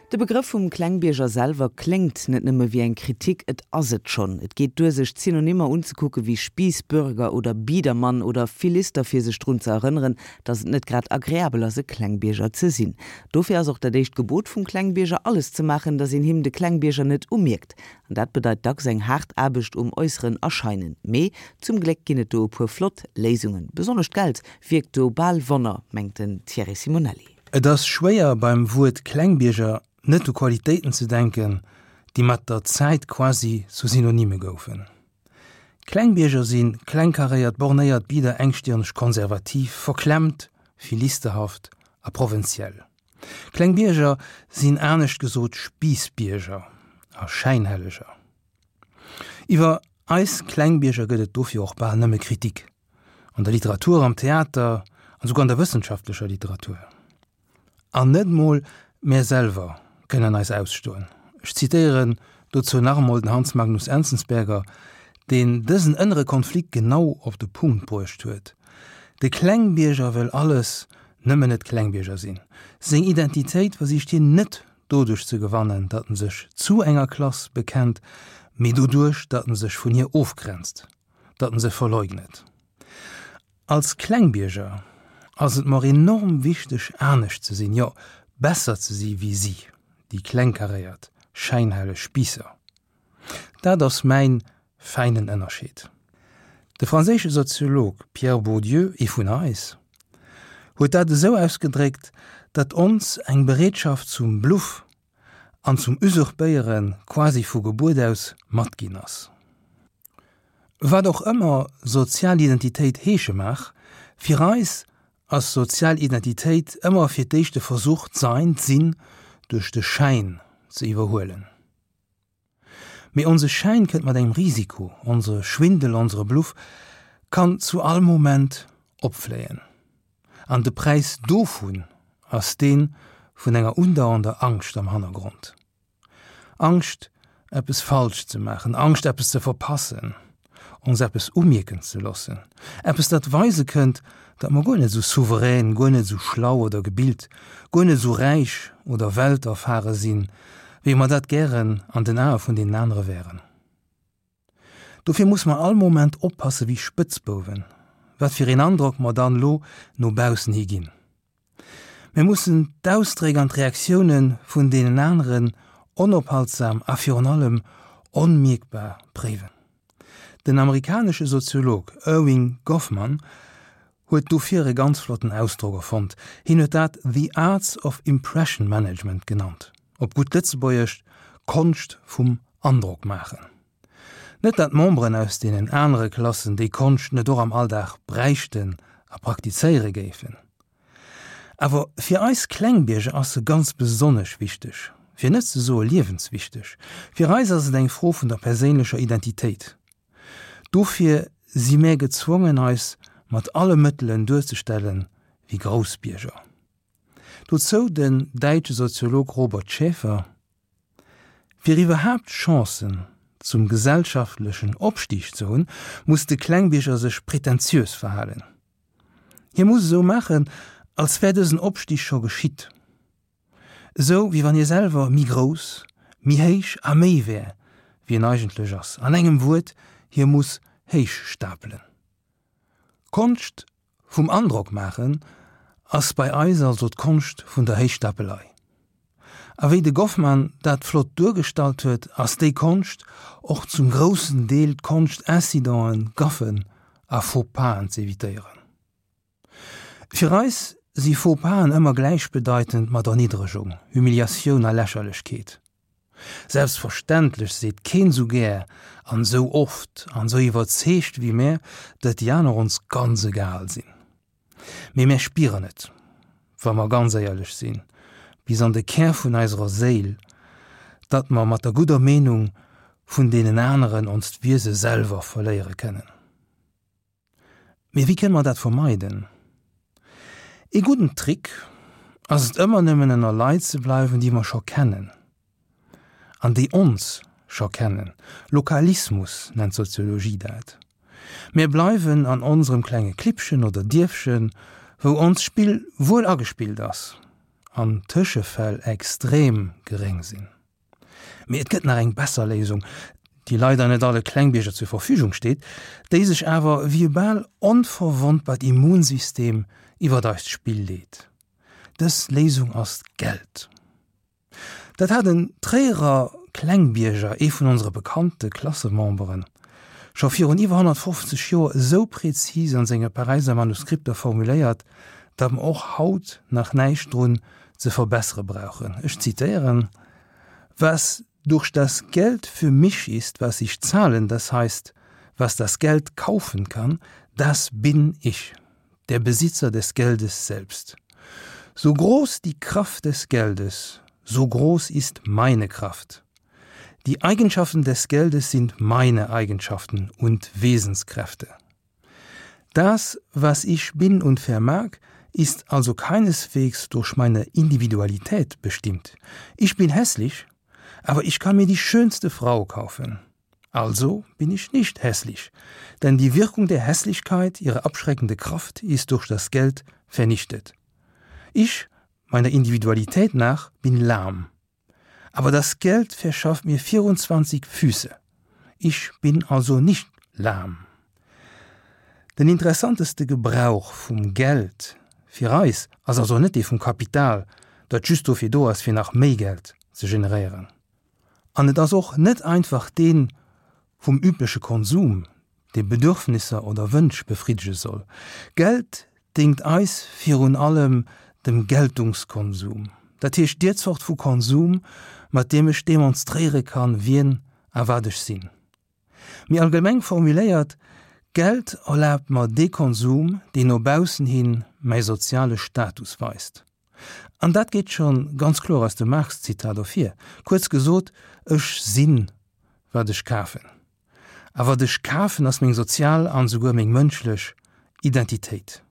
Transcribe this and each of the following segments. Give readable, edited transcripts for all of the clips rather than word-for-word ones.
De Begrëff vum Klengbierger selwer kléngt net nëmme wéi eng Kritik, et ass et schonn. Et geet duer sech d'Synonymer unzekucke wéi Spiissbürger oder Biedermann oder Philister fir sech drun ze erënneren, datt et net grad agreabel ass e Klengbierger ze sinn. Dofir ass och dat éischt Gebot vum Klengbierger alles ze maachen, datt een him de Klengbierger net umierkt. An dat bedeit dacks eng haart Aarbecht um äusseren Erscheinen. Mee zum Gléck ginn et do e puer flott Léisungen. Besonnesch d'Geld wierkt do bal Wonner, mengt den Thierry Simonelli. Et ass schwéier beim Wuert Klengbierger net u Qualitéiten ze denken, déi mat der Zäit quasi zu Synonyme goufen. Klengbierger si klengkaréiert, bornéiert, bieder, engstirneg, konservativ, verklemmt, philisterhaft a provënziell. Klengbierger sinn anescht gesot Spiissbierger a Schäinhelleger. Iwwer eis Klengbierger gëtt et dofir och bal nëmme Kritik. An der Literatur, am Theater an souguer an der wëssenschaftlecher Literatur. An net mol mär selwer kënnen eis ausstoen. Ech zitéieren dozou nach emol den Hans Magnus Enzensberger, deen dësen ënnere Konflikt genau op de Punkt bruecht huet, De Klengbierger wëll alles, nëmmen net Klengbierger sinn. Seng Identitéit versicht hien net doduerch ze gewannen, datt en sech zu enger Klass bekennt, mee doduerch, datt en sech vun hir ofgrenzt. datt en se verleugnet. Als Klengbierger ass et mer enorm wichteg anescht ze sinn, jo besser ze si wéi si, déi klengkaréiert, schäinhelleg Spiisser. Dat ass mäin fäinen Ënnerscheed. De franséische Soziolog Pierre Bourdieu, ee vun eis, huet dat esou ausgedréckt, datt ons eng Bereetschaft zum Bluff an zum Usurpéiere quasi vu Gebuert aus matginn ass. Wat och ëmmer sozial Identitéit heesche mag, fir eis ass sozial Identitéit ëmmer fir d'éischt de Versuch, d'Sein, d'Sinn duerch de Schäin ze iwwerhuelen. Mee onse Schäin kënnt mat engem Risiko, onsere Schwindel, onsere Bluff kann zu all Moment opfléien. An de Präis dovun ass dee vun enger undauernder Angscht am Hannergrond. Angscht, eppes falsch ze maachen, Angscht, eppes ze verpassen, ons eppes umierken ze loossen, eppes, dat weise kënnt, datt mer guer net esou souverän, guer net esou schlau oder gebilt, guer net esou räich oder welterfare sinn, wéi mer dat gären an den Ae vun deenen anere wären. Dofir muss mer all Moment oppasse wéi Spëtzbouwen, wat fir een Androck mer dann elo no baussen hi ginn. Mir mussen d'Ausdréck an d'Reaktioune vun deenen aneren onophaltsam a virun allem onmierkbar préiwen. Den amerikanesche Soziolog Erving Goffman huet dofir e ganz flotten Ausdrock erfonnt, hien huet dat The Arts of Impression Management genannt, op gutt Lëtzebuergesch, d'Konscht vum Androck maachen. Net dat d'Memberen aus deenen anere Klassen déi Konscht net och am Alldag bräichten a praktizéiere géifen. Awer fir eis Klengbierger ass se ganz besonnesch wichteg, fir net ze soe liewenswichteg. Fir eis ass et eng Fro vun der perséinlecher Identitéit. Dofir si mär gezwongen eis mat alle Mëttelen duerzestellen wéi Groussbierger. Dozou den däitsche Soziolog Robert Schäfer, Fir iwwerhaapt Chancen zum gesellschaftlechen Opstig ze hunn, muss de Klengbierger sech pretentiös verhalen. Hie muss esou maachen, als wär dësen Opstig scho geschitt. Esou wéi wann hie selwer méi grouss, méi héich a méi wär, wéi en eigentlech ass. An engem Wuert, hie muss héich stapelen. D'Konscht vum Androck maachen ass bei eis also d'Konscht vun der Héichstapelei. A wéi de Goffman dat flott duergestallt huet, ass déi Konscht och zum groussen Deel d'Konscht Incidenten, Gaffen a Faux-pas'en z'evitéieren. Fir eis si Faux-pas'en ëmmer gläichbedeitend mat Erniddregung, Humiliatioun a Lächerlechkeet. Selbstverständlech seet keen sou gär an sou oft an sou iwwerzeegt wéi mär, datt déi aner ons ganz egal sinn. Mee mär spieren et, wa mer ganz éierlech sinn, bis an de Kär vun eiserer Séil, datt mer mat der gudder Meenung vun deenen aneren onst Wiese selwer verléiere kënnen. Mee wéi kënne mer dat vermeiden? Ee gudden Trick ass et ëmmer nëmmen ënner Leit ze bleiwen, déi mer scho kennen an déi ons scho kennen. Lokalismus nennt d'Soziologie dat. Mir bleiwen an onserem klenge Klippchen oder Dierfchen, wou onst Spill wuel agespillt ass. an Tëschefäll extrem geréng sinn. Mee et gëtt nach eng besser Léisung, déi leider net alle Klengbierger zur Verfügung steet, déi sech awer wéi e bal onverwonnbart Immunsystem iwwert eist Spill leet. Dës Léisung ass d'Geld. Dat hat en Tréierer Klengbierger, ee vun onsere bekannte Klassememberen, scho virun iwwer 150 Joer esou präzis an senge Paräiser Manuskripter formuléiert, datt mer och haut nach näischt drun ze verbessere brauchen. Ech zitéieren, Was durch das Geld für mich ist, was ich zahlen, das heißt, was das Geld kaufen kann, das bin ich, der Besitzer des Geldes selbst. So groß die Kraft des Geldes, so groß ist meine Kraft. Die Eigenschaften des Geldes sind meine Eigenschaften und Wesenskräfte. Das, was ich bin und vermag, ist also keineswegs durch meine Individualität bestimmt. Ich bin hässlich, aber ich kann mir die schönste Frau kaufen. Also bin ich nicht hässlich, denn die Wirkung der Hässlichkeit, ihre abschreckende Kraft ist durch das Geld vernichtet. Ich, meiner Individualität nach, bin lahm. Aber das Geld verschafft mir 24 Füße. Ich bin also nicht lahm. Den interessanteste Gebrauch vum Geld fir eis ass also net dee vum Kapital, dat just dofir do ass fir nach méi Geld ze generéieren. An et ass och net einfach dee vum übleche Konsum, dee Bedürfnisser oder Wënsch befriddege soll. Geld déngt eis virun allem dem Geltungskonsum, dat heescht deer Zort vu Konsum, mat deem ech demonstréiere kann, wien a wat ech sinn. Méi allgemeng formuléiert, Geld erlaabt mer dee Konsum, deen no baussen hin mäi soziale Status weist. An dat geet scho ganz kloer aus dem Marx-Zitat ervir. Kuerz gesot, Ech sinn, wat ech kafen. A wat ech kafen, ass meng sozial an esouguer meng mënschlech Identitéit.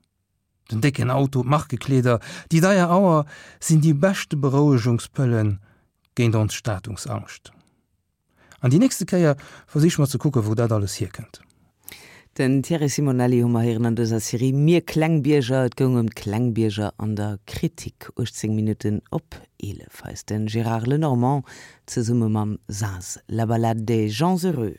Den décken Auto, d'Markekleeder, déi deier Auer sinn déi beschte Berouegungspëlle géint ons Statungsangscht. An déi nächste Kéier versiche mer ze kucken, wou dat alles hierkënnt. Den Thierry Simonelli hu mer héieren an dëser Serie Mir Klengbierger. Et goung ëm d'Klengbierger an der Kritik. 18 Minutten op 11. Hei ass de Gérard Lenormand zesumme mam Saz La Ballade des gens heureux.